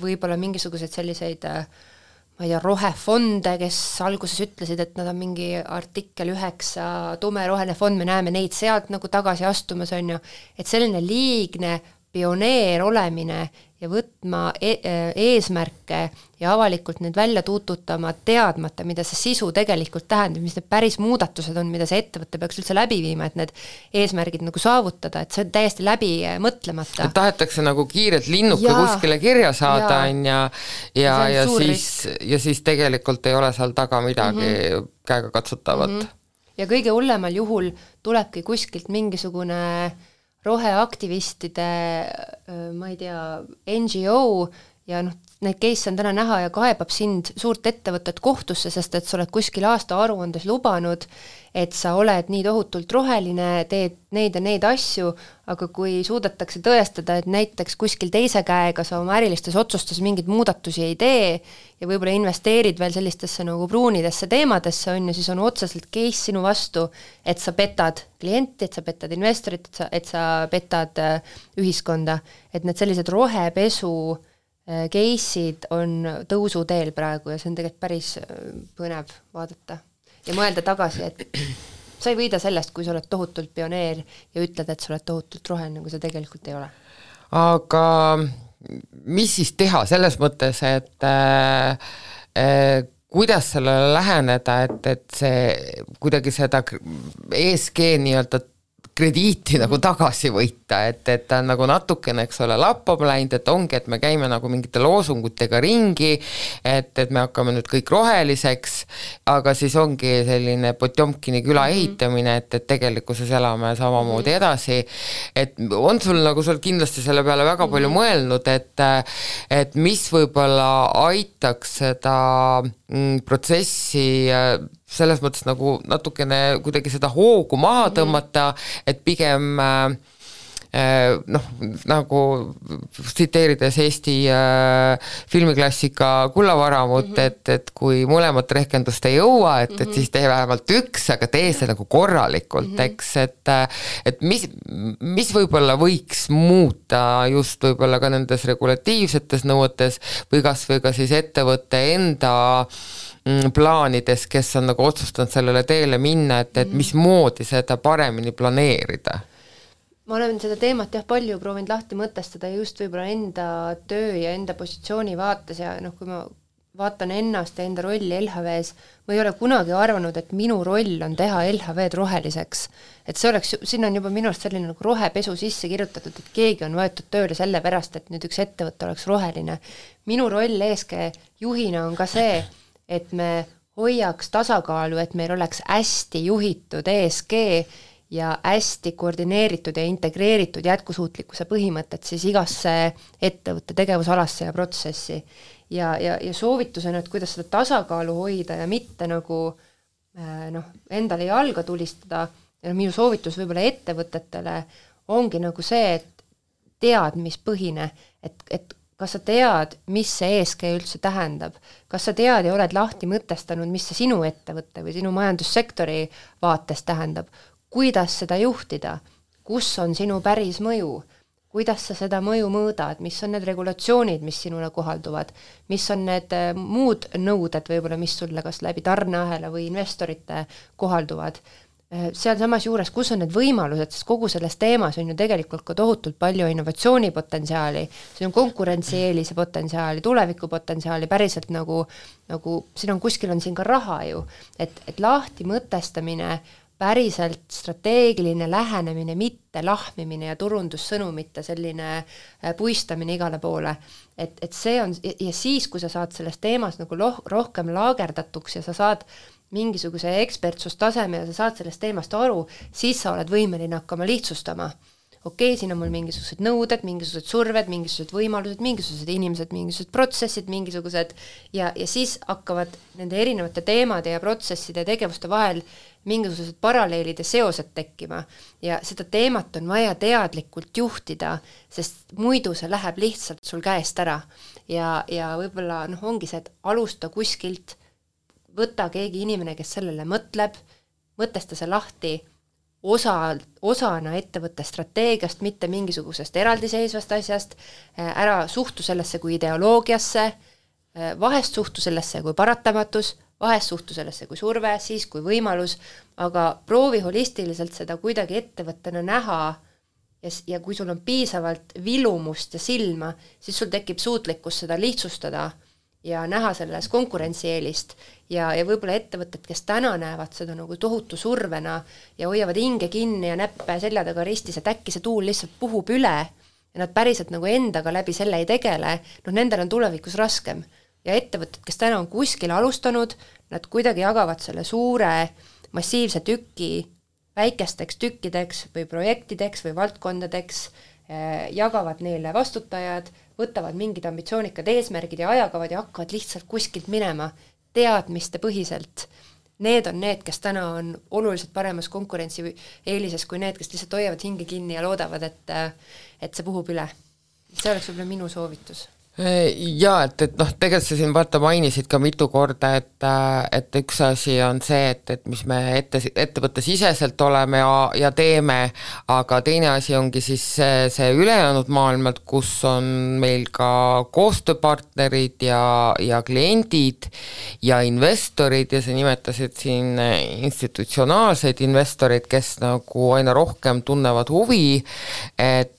võib-olla mingisuguseid selliseid ma ei tea, rohefonde, kes alguses ütlesid, et nad on mingi artikkel 9 tumeroheline fond, me näeme neid sealt nagu tagasi astumas, on ju, et selline liigne pioneer olemine ja võtma eesmärke ja avalikult need välja tuututama teadmata, mida see sisu tegelikult tähendab, mis need päris muudatused on, mida see ettevõte peaks üldse läbi viima, et need eesmärgid nagu saavutada, et see on täiesti läbi mõtlemata. Et tahetakse nagu kiirelt linnuke kuskile kirja saada ja siis tegelikult ei ole seal taga midagi käega katsutavat. Ja kõige hullemal juhul tulebki kuskilt mingisugune roheaktivistide, ma ei tea, NGO ja neid case on täna näha ja kaebab sind suurt ettevõtet kohtusse, sest et sa oled kuskil aasta aruandes lubanud, et sa oled nii tohutult roheline, teed neid ja neid asju, aga kui suudetakse tõestada, et näiteks kuskil teise käega sa oma ärilistes otsustes mingeid muudatusi ei tee ja võib-olla investeerid veel sellistesse nagu pruunidesse teemadesse, on ju, siis on otseselt case sinu vastu, et sa petad klienti, et sa petad investorit, et sa petad ühiskonda, et need sellised rohepesu case'id on tõusuteel praegu ja see on tegelikult päris põnev vaadata ja mõelda tagasi, et sa ei võida sellest, kui sa oled tohutult pioneer ja ütled, et sa oled tohutult roheline, kui sa tegelikult ei ole. Aga mis siis teha selles mõttes, et kuidas sellele läheneda, et see kuidagi seda ESG nii-öelda krediiti nagu tagasi võita, et ta on nagu natukene, eks ole, lappama läinud, et ongi, et me käime nagu mingite loosungutega ringi, et me hakkame nüüd kõik roheliseks, aga siis ongi selline Potjomkini küla ehitamine, et tegelikkuses elame samamoodi edasi, et on sul nagu sul kindlasti selle peale väga palju mõelnud, et mis võib-olla aitaks seda protsessi selles mõttes nagu natukene kuidagi seda hoogu maha tõmmata, et pigem nagu tsiteerides Eesti filmiklassika Kullavaramut, et kui mõlemat rehkendust ei jõua, et siis tee vähemalt üks, aga tee see nagu korralikult, eks, et mis võib-olla võiks muuta just võib-olla ka nendes regulatiivsetes nõuetes või kas või ka siis ettevõtte enda plaanides, kes on nagu otsustanud sellele teele minna, et mismoodi seda paremini planeerida? Ma olen seda teemat palju proovinud lahti mõtestada just võib-olla enda töö ja enda positsiooni vaates ja kui ma vaatan ennast ja enda rolli LHV-s, ma ei ole kunagi arvanud, et minu roll on teha LHV-d roheliseks. Et see oleks, siin on juba minu arust selline nagu rohepesu sisse kirjutatud, et keegi on võetud tööle selle pärast, et nüüd üks ettevõte oleks roheline. Minu roll ESG juhina on ka see, et me hoiaks tasakaalu, et meil oleks hästi juhitud ESG ja hästi koordineeritud ja integreeritud jätkusuutlikkuse põhimõtted siis igasse ettevõtte tegevusalasse ja protsessi. Ja soovitusena, et kuidas seda tasakaalu hoida ja mitte nagu endale jalga tulistada, ja minu soovitus võib-olla ettevõtetele ongi nagu see, et teadmispõhine, et kas sa tead, mis see ESG üldse tähendab, kas sa tead ja oled lahti mõtestanud, mis see sinu ettevõtte või sinu majandussektori vaates tähendab, kuidas seda juhtida, kus on sinu päris mõju, kuidas sa seda mõju mõõdad, mis on need regulatsioonid, mis sinule kohalduvad, mis on need muud nõuded võib-olla, mis sulle kas läbi tarneahela või investorite kohalduvad. Seal samas juures, kus on need võimalused, sest kogu selles teemas on ju tegelikult ka tohutult palju innovatsioonipotentsiaali, siin on konkurentsieelise potentsiaali, tulevikupotentsiaali, päriselt nagu siin on kuskil on siin ka raha ju, et lahti mõtestamine, päriselt strateegiline lähenemine, mitte lahmimine ja turundussõnumite selline puistamine igale poole. Et see on, ja siis, kui sa saad selles teemas nagu rohkem laagerdatuks ja sa saad mingisuguse ekspertsustaseme ja sa saad sellest teemast aru, siis sa oled võimeline hakkama lihtsustama. Okei, siin on mul mingisugused nõuded, mingisugused surved, mingisugused võimalused, mingisugused inimesed, mingisugused protsessid, mingisugused ja siis hakkavad nende erinevate teemade ja protsesside ja tegevuste vahel mingisugused paralleelid ja seosed tekkima ja seda teemat on vaja teadlikult juhtida, sest muidu see läheb lihtsalt sul käest ära ja võib-olla ongi see, et alusta kuskilt, võta keegi inimene, kes sellele mõtleb, mõtesta see lahti osana ettevõtte strateegiast, mitte mingisugusest eraldiseisvast asjast, ära suhtu sellesse kui ideoloogiasse, vahest suhtu sellesse kui paratamatus, vahest suhtu sellesse kui surve, siis kui võimalus, aga proovi holistiliselt seda kuidagi ettevõttena näha ja kui sul on piisavalt vilumust ja silma, siis sul tekib suutlikkus seda lihtsustada ja näha selles konkurentsieelist ja võib-olla ettevõtted, kes täna näevad seda nagu tohutu survena ja hoiavad hinge kinni ja näppe selja taga ristis, et äkki see tuul lihtsalt puhub üle ja nad päriselt nagu endaga läbi selle ei tegele, nendel on tulevikus raskem. Ja ettevõtted, kes täna on kuskil alustanud, nad kuidagi jagavad selle suure massiivse tüki väikesteks tükkideks või projektideks või valdkondadeks, jagavad neile vastutajad, võtavad mingid ambitsioonikad eesmärgid ja ajakavad ja hakkavad lihtsalt kuskilt minema teadmiste põhiselt. Need on need, kes täna on oluliselt paremas konkurentsi eelises kui need, kes lihtsalt hoiavad hinge kinni ja loodavad, et see puhub üle. See oleks võib-olla minu soovitus. Jaa, et tegelikult sa siin mainisid ka mitu korda, et üks asi on see, et mis me ettevõtte siseselt oleme ja teeme, aga teine asi ongi siis see ülejäänud maailmad, kus on meil ka koostööpartnerid ja kliendid ja investorid ja sa nimetasid siin institutsionaalseid investorid, kes nagu aina rohkem tunnevad huvi, et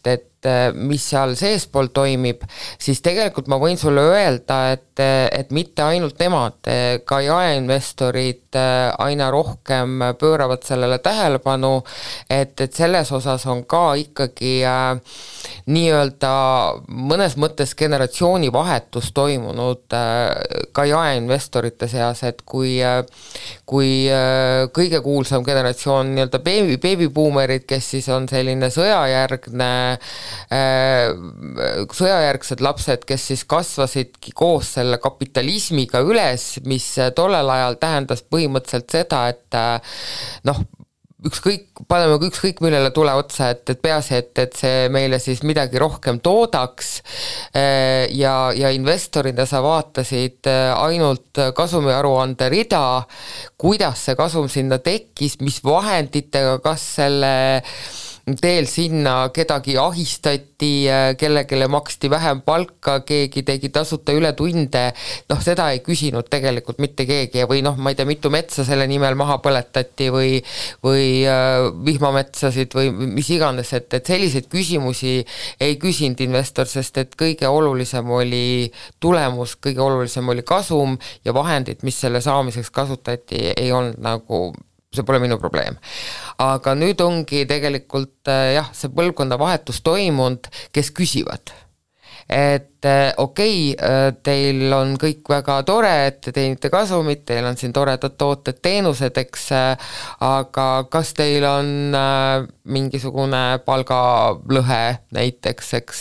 mis seal seespool toimib, siis tegelikult ma võin sulle öelda, et mitte ainult nemad, ka jaeinvestorid aina rohkem pööravad sellele tähelepanu, et selles osas on ka ikkagi nii-öelda mõnes mõttes generatsioonivahetus toimunud ka jaeinvestorite seas, et kui kõige kuulsam generatsioon nii-öelda beebibuumerid, kes siis on selline sõjajärgsed lapsed, kes siis kasvasidki koos selle kapitalismiga üles, mis tollel ajal tähendas põhimõtteliselt seda, et paneme ükskõik millele tule otsa, et peaasi, et see meile siis midagi rohkem toodaks ja investorina sa vaatasid ainult kasumiaruande rida, kuidas see kasum sinna tekkis, mis vahenditega, kas selle teel sinna kedagi ahistati, kellele maksti vähem palka, keegi tegi tasuta ületunde, noh, seda ei küsinud tegelikult mitte keegi või noh, ma ei tea, mitu metsa selle nimel maha põletati või vihmametsasid või mis iganes, et selliseid küsimusi ei küsinud investor, sest et kõige olulisem oli tulemus, kõige olulisem oli kasum ja vahendid, mis selle saamiseks kasutati, ei olnud nagu, see pole minu probleem. Aga nüüd ongi tegelikult jah, see põlvkonnavahetus toimunud, kes küsivad. Et okei, teil on kõik väga tore, et te teenite kasumit, teil on siin toredad tooted, teenused, eks, aga kas teil on mingisugune palgalõhe näiteks, eks,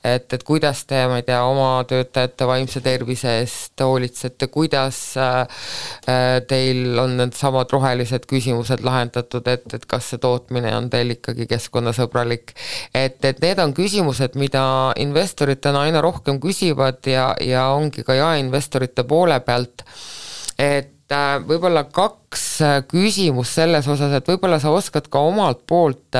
et kuidas te, ma ei tea, oma töötajate vaimse tervise eest hoolitsete, kuidas teil on need samad rohelised küsimused lahendatud, et kas see tootmine on teil ikkagi keskkonnasõbralik, et need on küsimused, mida investoritena aina rohkem küsivad ja ongi ka jaeinvestorite poole pealt, et võib-olla 2 küsimus selles osas, et võib-olla sa oskad ka omalt poolt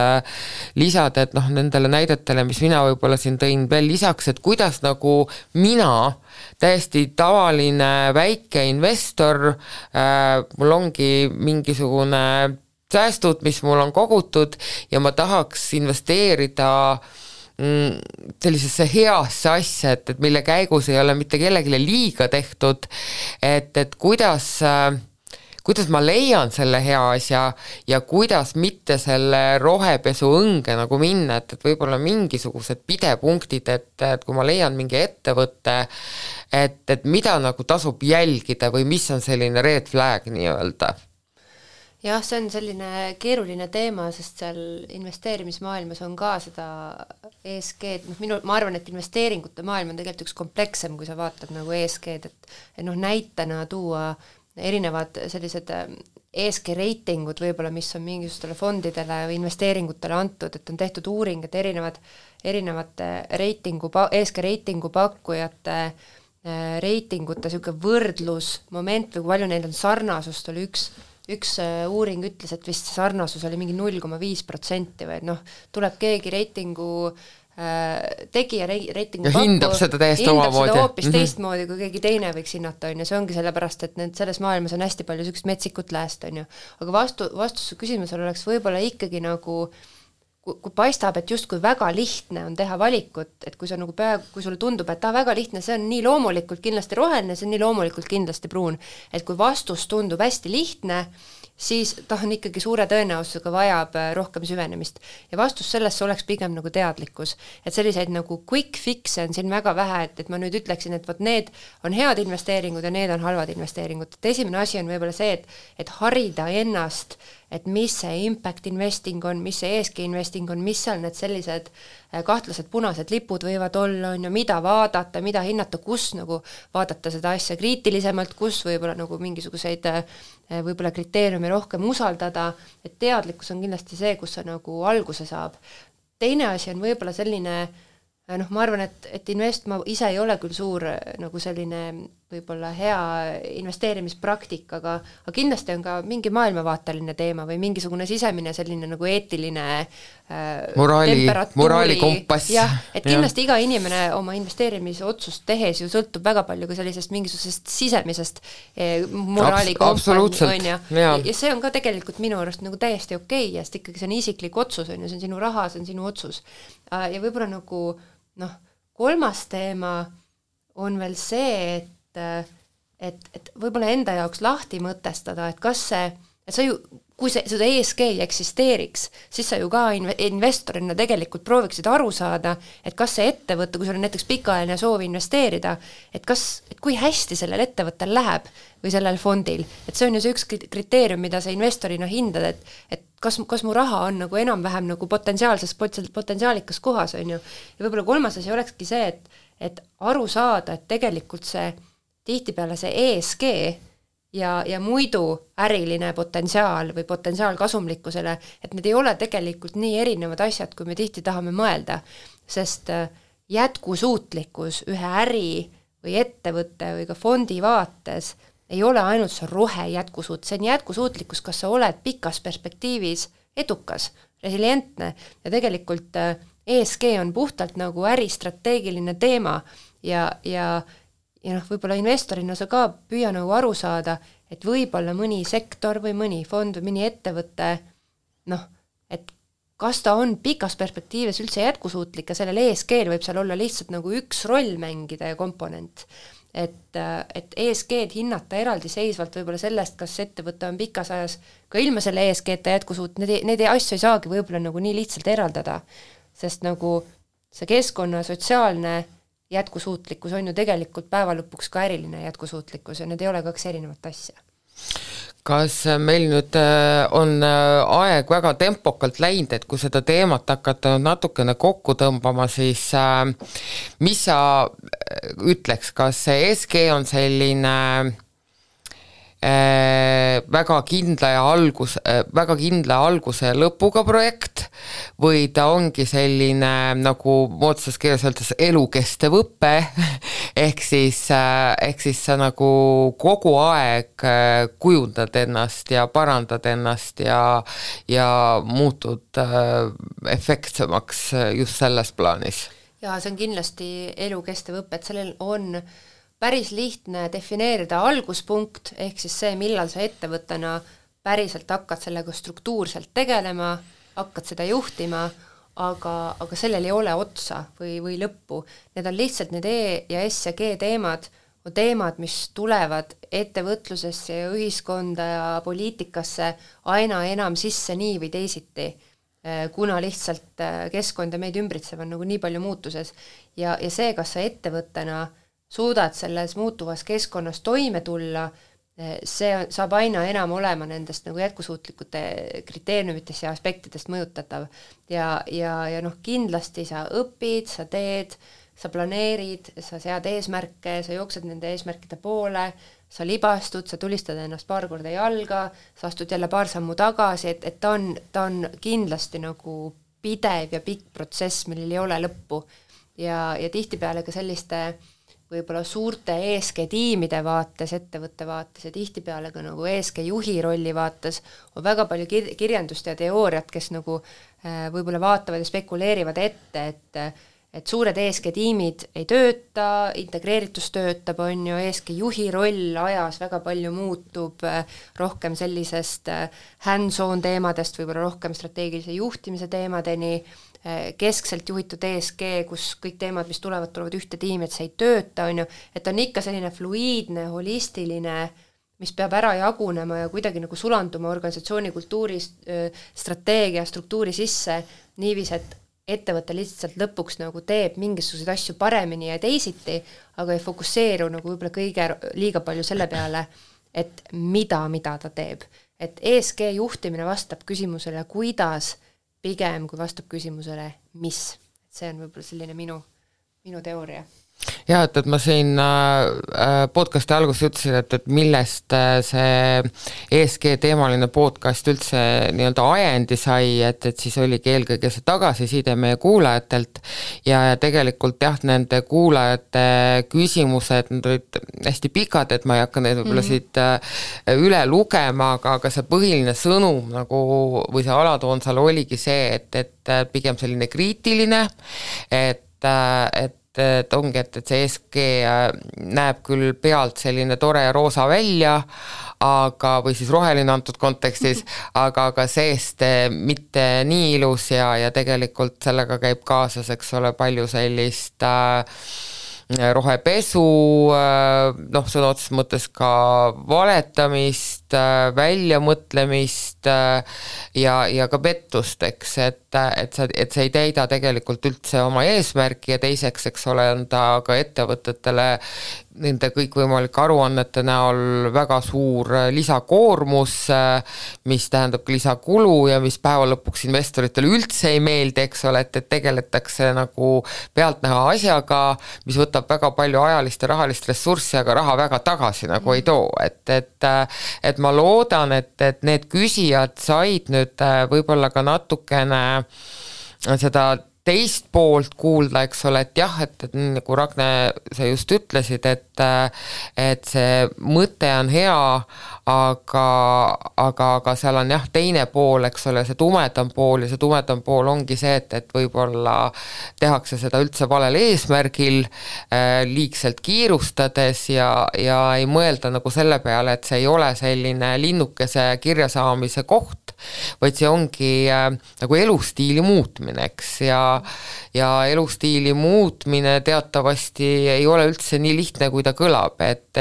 lisada, et noh, nendele näidetele, mis mina võib-olla siin tõin veel lisaks, et kuidas nagu mina, täiesti tavaline väike investor, mul ongi mingisugune säästud, mis mul on kogutud ja ma tahaks investeerida sellisesse heasse asja, et mille käigus ei ole mitte kellegile liiga tehtud, et kuidas ma leian selle hea asja ja kuidas mitte selle rohepesu õnge nagu minna, et võib-olla mingisugused pidepunktid, et kui ma leian mingi ettevõtte, et mida nagu tasub jälgida või mis on selline red flag nii-öelda. Jah, see on selline keeruline teema, sest seal investeerimismaailmas on ka seda ESG-d, ma arvan, et investeeringute maailm on tegelikult üks komplekssem, kui sa vaatad nagu ESG-d, et näitena tuua erinevad sellised ESG reitingud võib-olla, mis on mingisugustele fondidele või investeeringutele antud, et on tehtud uuring, et erinevate ESG reitingu pakkujate reitingute selline võrdlusmoment või kui palju neil on sarnasust, oli üks uuring ütles, et vist sarnasus oli mingi 0,5% või tuleb keegi reitingu tegija reitingu pakku, hindab seda täiesti omamoodi. Hoopis teistmoodi, kui keegi teine võiks hinnata, on ju, see ongi sellepärast, et selles maailmas on hästi palju sellist metsikut lääst, on ju. Aga vastus küsimusele oleks võib-olla ikkagi nagu, kui paistab, et justkui väga lihtne on teha valikut, et kui kui sulle tundub, et väga lihtne, see on nii loomulikult kindlasti roheline, see on nii loomulikult kindlasti pruun, et kui vastus tundub hästi lihtne, siis ta on ikkagi suure tõenäosusega vajab rohkem süvenemist. Ja vastus sellesse oleks pigem nagu teadlikkus. Et selliseid nagu quick fix'e on siin väga vähe, et ma nüüd ütleksin, et need on head investeeringud ja need on halvad investeeringud. Et esimene asi on võib-olla see, et harida ennast, et mis see impact investing on, mis see ESG investing on, mis seal need sellised kahtlased punased lipud võivad olla, on ju, mida vaadata, mida hinnata, kus nagu vaadata seda asja kriitilisemalt, kus võib-olla nagu mingisuguseid võib-olla kriteeriumi rohkem usaldada, et teadlikkus on kindlasti see, kus see nagu alguse saab. Teine asi on võib-olla selline, ma arvan, et ma ise ei ole küll suur nagu selline võib-olla hea investeerimispraktik, aga kindlasti on ka mingi maailmavaateline teema või mingisugune sisemine selline nagu eetiline moraali kompass. Jah, et kindlasti iga inimene oma investeerimisotsust tehes ju sõltub väga palju ka sellisest mingisugusest sisemisest moraali kompass, on ju. Ja see on ka tegelikult minu arust nagu täiesti okei, sest ikkagi see on isiklik otsus, on ju, see on sinu raha, see on sinu otsus. Ja võib-olla nagu kolmas teema on veel see, et võib-olla enda jaoks lahti mõtestada, et kas see, et sa ju, kui seda ESG ei eksisteeriks, siis sa ju ka investorina tegelikult prooviksid aru saada, et kas see ettevõte, kui sul on näiteks pikaajaline soov investeerida, et kui hästi sellel ettevõttel läheb või sellel fondil, et see on ju see üks kriteerium, mida sa investorina hindad, et kas mu raha on nagu enam-vähem nagu potentsiaalikas kohas, on ju. Ja võib-olla kolmas asi olekski see, et aru saada, et tegelikult see tihtipeale see ESG ja muidu äriline potentsiaal või potentsiaal kasumlikkusele, et need ei ole tegelikult nii erinevad asjad, kui me tihti tahame mõelda, sest jätkusuutlikkus ühe äri või ettevõtte või ka fondi vaates ei ole ainult see rohe jätkusuut, see on jätkusuutlikkus, kas sa oled pikas perspektiivis edukas, resilientne ja tegelikult ESG on puhtalt nagu äristrateegiline teema ja noh, võib-olla investorina sa ka püüa nagu aru saada, et võib-olla mõni sektor või mõni fond või mõni ettevõte, noh, et kas ta on pikas perspektiivis üldse jätkusuutlik ja sellel ESG-l võib seal olla lihtsalt nagu üks roll mängida ja komponent. Et ESG-d hinnata eraldiseisvalt võib-olla sellest, kas ettevõte on pikas ajas ka ilma selle ESG-ta jätkusuutlik, need asju ei saagi võib-olla nagu nii lihtsalt eraldada, sest nagu see keskkonna sotsiaalne jätkusuutlikkus on ju tegelikult päeva lõpuks ka äriline jätkusuutlikkus ja need ei ole kaks erinevat asja. Kas meil nüüd on aeg väga tempokalt läinud, et kui seda teemat hakata natukene kokku tõmbama, siis mis sa ütleks, kas see ESG on selline väga kindla alguse ja lõpuga projekt või ta ongi selline, nagu moodsas keeles öeldes, elukestev õpe, ehk siis sa nagu kogu aeg kujundad ennast ja parandad ennast ja muutud efektsemaks just selles plaanis? Jaa, see on kindlasti elukestev õpe, et sellel on päris lihtne defineerida alguspunkt, ehk siis see, millal sa ettevõttena päriselt hakkad sellega struktuurselt tegelema, hakkad seda juhtima, aga sellel ei ole otsa või lõppu. Need on lihtsalt need E ja S ja G teemad, on teemad, mis tulevad ettevõtlusesse ja ühiskonda ja poliitikasse aina enam sisse nii või teisiti, kuna lihtsalt keskkond ja meid ümbritsev on nagu nii palju muutuses. Ja see, kas sa ettevõttena suudad selles muutuvas keskkonnas toime tulla, see saab aina enam olema nendest nagu jätkusuutlikute kriteeriumitest ja aspektidest mõjutatav. Ja noh, kindlasti sa õpid, sa teed, sa planeerid, sa sead eesmärke, sa jooksed nende eesmärkide poole, sa libastud, sa tulistad ennast paar korda jalga, sa astud jälle paar sammu tagasi, et ta on kindlasti nagu pidev ja pikk protsess, millel ei ole lõppu. Ja tihtipeale ka selliste võib-olla suurte ESG-tiimide vaates, ettevõtte vaates ja tihtipeale ka nagu ESG-juhi rolli vaates on väga palju kirjandust ja teooriat, kes nagu võib-olla vaatavad ja spekuleerivad ette, et suured ESG-tiimid ei tööta, integreeritus töötab, on ju, ESG-juhi roll ajas väga palju muutub, rohkem sellisest hands-on teemadest, võib-olla rohkem strateegilise juhtimise teemadeni, keskselt juhitud ESG, kus kõik teemad, mis tulevad ühte tiimi, et see ei tööta, on ju, et on ikka selline fluiidne, holistiline, mis peab ära jagunema ja kuidagi nagu sulanduma organisatsiooni kultuuri, strateegia, struktuuri sisse, niivis, et ettevõte lihtsalt lõpuks nagu teeb mingisuguseid asju paremini ja teisiti, aga ei fokusseeru nagu võib-olla liiga palju selle peale, et mida ta teeb. Et ESG juhtimine vastab küsimusele, kuidas pigem, kui vastab küsimusele, mis. See on võib-olla selline minu teooria. Ja, et ma siin podcasti alguses ütlesin, et millest see ESG teemaline podcast üldse nii-öelda ajendi sai, et siis oligi eelkõige see tagasiside meie kuulajatelt ja tegelikult jah, nende kuulajate küsimused, need olid hästi pikad, et ma ei hakka neid võib-olla siit üle lugema, aga see põhiline sõnum nagu, või see alatoon seal oligi see, et pigem selline kriitiline, et ongi, et see ESG näeb küll pealt selline tore ja roosa välja, või siis roheline antud kontekstis, aga seest mitte nii ilus ja tegelikult sellega käib kaasas, eks ole, palju sellist rohepesu, noh, sõna otseses mõttes ka valetamist, väljamõtlemist ja ka pettust, eks, et see ei täida tegelikult üldse oma eesmärki ja teiseks, eks ole, on ta ka ettevõtetele nende kõikvõimalike aruannete näol väga suur lisakoormus, mis tähendab lisakulu ja mis päeva lõpuks investoritele üldse ei meeldi, eks ole, et tegeletakse nagu pealtnäha asjaga, mis võtab väga palju ajalist ja rahalist ressurssi, aga raha väga tagasi nagu ei too, et ma loodan, et need küsijad said nüüd võib-olla ka natukene seda teist poolt kuulda, eks ole, et jah, et nagu Ragne, sa just ütlesid, et see mõte on hea, aga seal on jah, teine pool, eks ole, see tumedam pool ja see tumedam pool ongi see, et võib-olla tehakse seda üldse valel eesmärgil, liigselt kiirustades ja ei mõelda nagu selle peale, et see ei ole selline linnukese kirjasaamise koht, vaid see ongi nagu elustiili muutmine, eks, ja elustiili muutmine teatavasti ei ole üldse nii lihtne, kui ta kõlab, et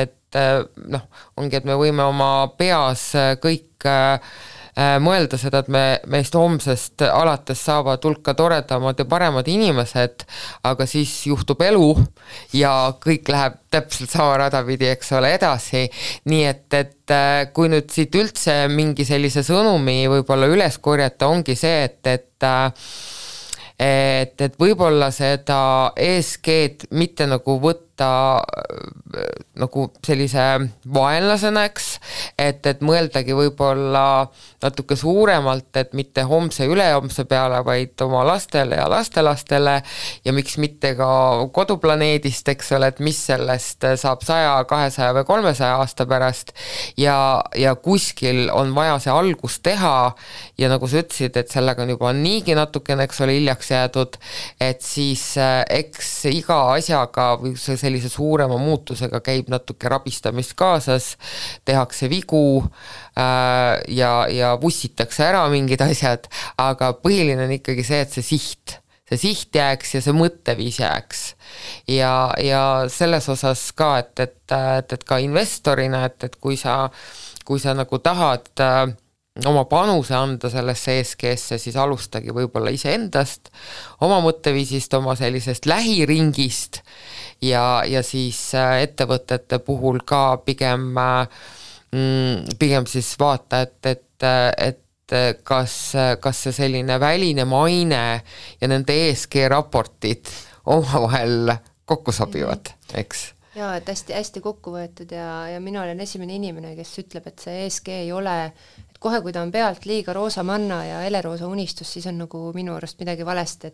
noh, ongi, et me võime oma peas kõik mõelda seda, et meist homsest alates saavad hulka toredamad ja paremad inimesed, aga siis juhtub elu ja kõik läheb täpselt sama rada pidi, eks ole, edasi. Nii et kui nüüd siit üldse mingi sellise sõnumi võib-olla üles korjata, ongi see, et võib-olla seda ESG-d mitte nagu võtta nagu sellise vaenlasena, eks, et mõeldagi võib-olla natuke suuremalt, et mitte homse ülehomse peale, vaid oma lastele ja lastelastele ja miks mitte ka koduplaneedist, eks ole, et mis sellest saab 100, 200 või 300 aasta pärast ja kuskil on vaja see algus teha ja nagu sa ütlesid, et sellega on juba niigi natukene, eks ole, hiljaks jäädud, et siis eks iga asjaga või sellise suurema muutusega käib natuke rabistamist kaasas, tehakse vigu ja vussitakse ära mingid asjad, aga põhiline on ikkagi see, et see siht jääks ja see mõtteviis jääks. Ja selles osas ka, et ka investorina, et kui sa nagu tahad oma panuse anda sellesse ESG-sse, siis alustagi võib-olla iseendast, oma mõtteviisist, oma sellisest lähiringist ja siis ettevõtete puhul ka pigem siis vaata, et kas see selline väline maine ja nende ESG raportid omavahel kokku sobivad, eks? Jaa, et hästi kokku võetud ja mina olen esimene inimene, kes ütleb, et see ESG ei ole, et kohe, kui ta on pealt liiga roosa manna ja heleroosa unistus, siis on nagu minu arust midagi valesti,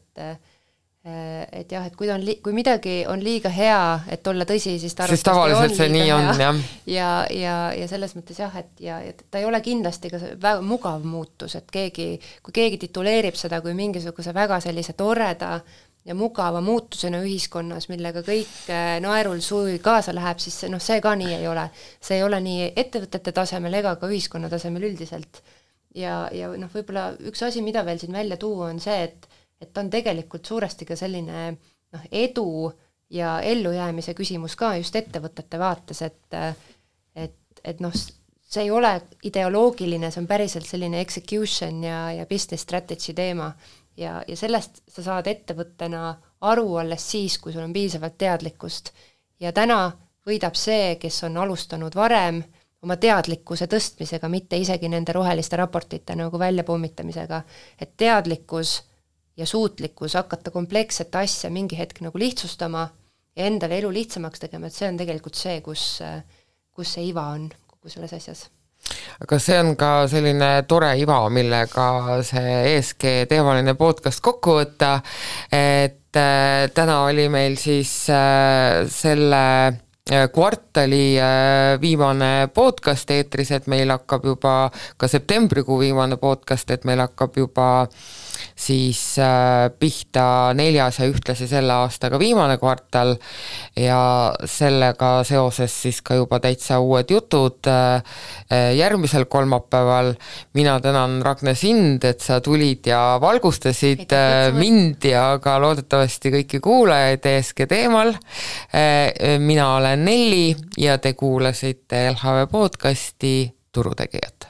et jah, et kui midagi on liiga hea, et olla tõsi, siis ta siis tavaliselt see nii on, jah. Ja selles mõttes jah, et ta ei ole kindlasti ka väga mugav muutus, et kui keegi tituleerib seda kui mingisuguse väga sellise toreda ja mugava muutusena ühiskonnas, millega kõik naerul suvi kaasa läheb, siis see ka nii ei ole. See ei ole nii ettevõtete tasemel ega ka ühiskonna tasemel üldiselt. Ja võib-olla üks asi, mida veel siin välja tuua, on see, et ta on tegelikult suuresti ka selline edu ja ellujäämise küsimus ka just ettevõtete vaates, et see ei ole ideoloogiline, see on päriselt selline execution ja business strategy teema. Ja sellest sa saad ettevõttena aru alles siis, kui sul on piisavalt teadlikkust. Ja täna võidab see, kes on alustanud varem oma teadlikkuse tõstmisega, mitte isegi nende roheliste raportite nagu väljapommitamisega, et teadlikkus ja suutlikkus hakata kompleksset asja mingi hetk nagu lihtsustama ja endale elu lihtsamaks tegema, et see on tegelikult see, kus see iva on kogu selles asjas. Aga see on ka selline tore iva, millega see ESG teemaline podcast kokku võtta, et täna oli meil siis selle kvartali viimane podcast eetris, et meil hakkab juba ka septembrikuu viimane podcast, et meil hakkab juba siis pihta 4. ja ühtlasi selle aastaga viimane kvartal ja sellega seoses siis ka juba täitsa uued jutud järgmisel kolmapäeval. Mina tänan, Ragne, sind, et sa tulid ja valgustasid mind ja ka loodetavasti kõiki kuulajaid ESG teemal. Mina olen Nelli ja te kuulasite LHV podcasti Turutegijad.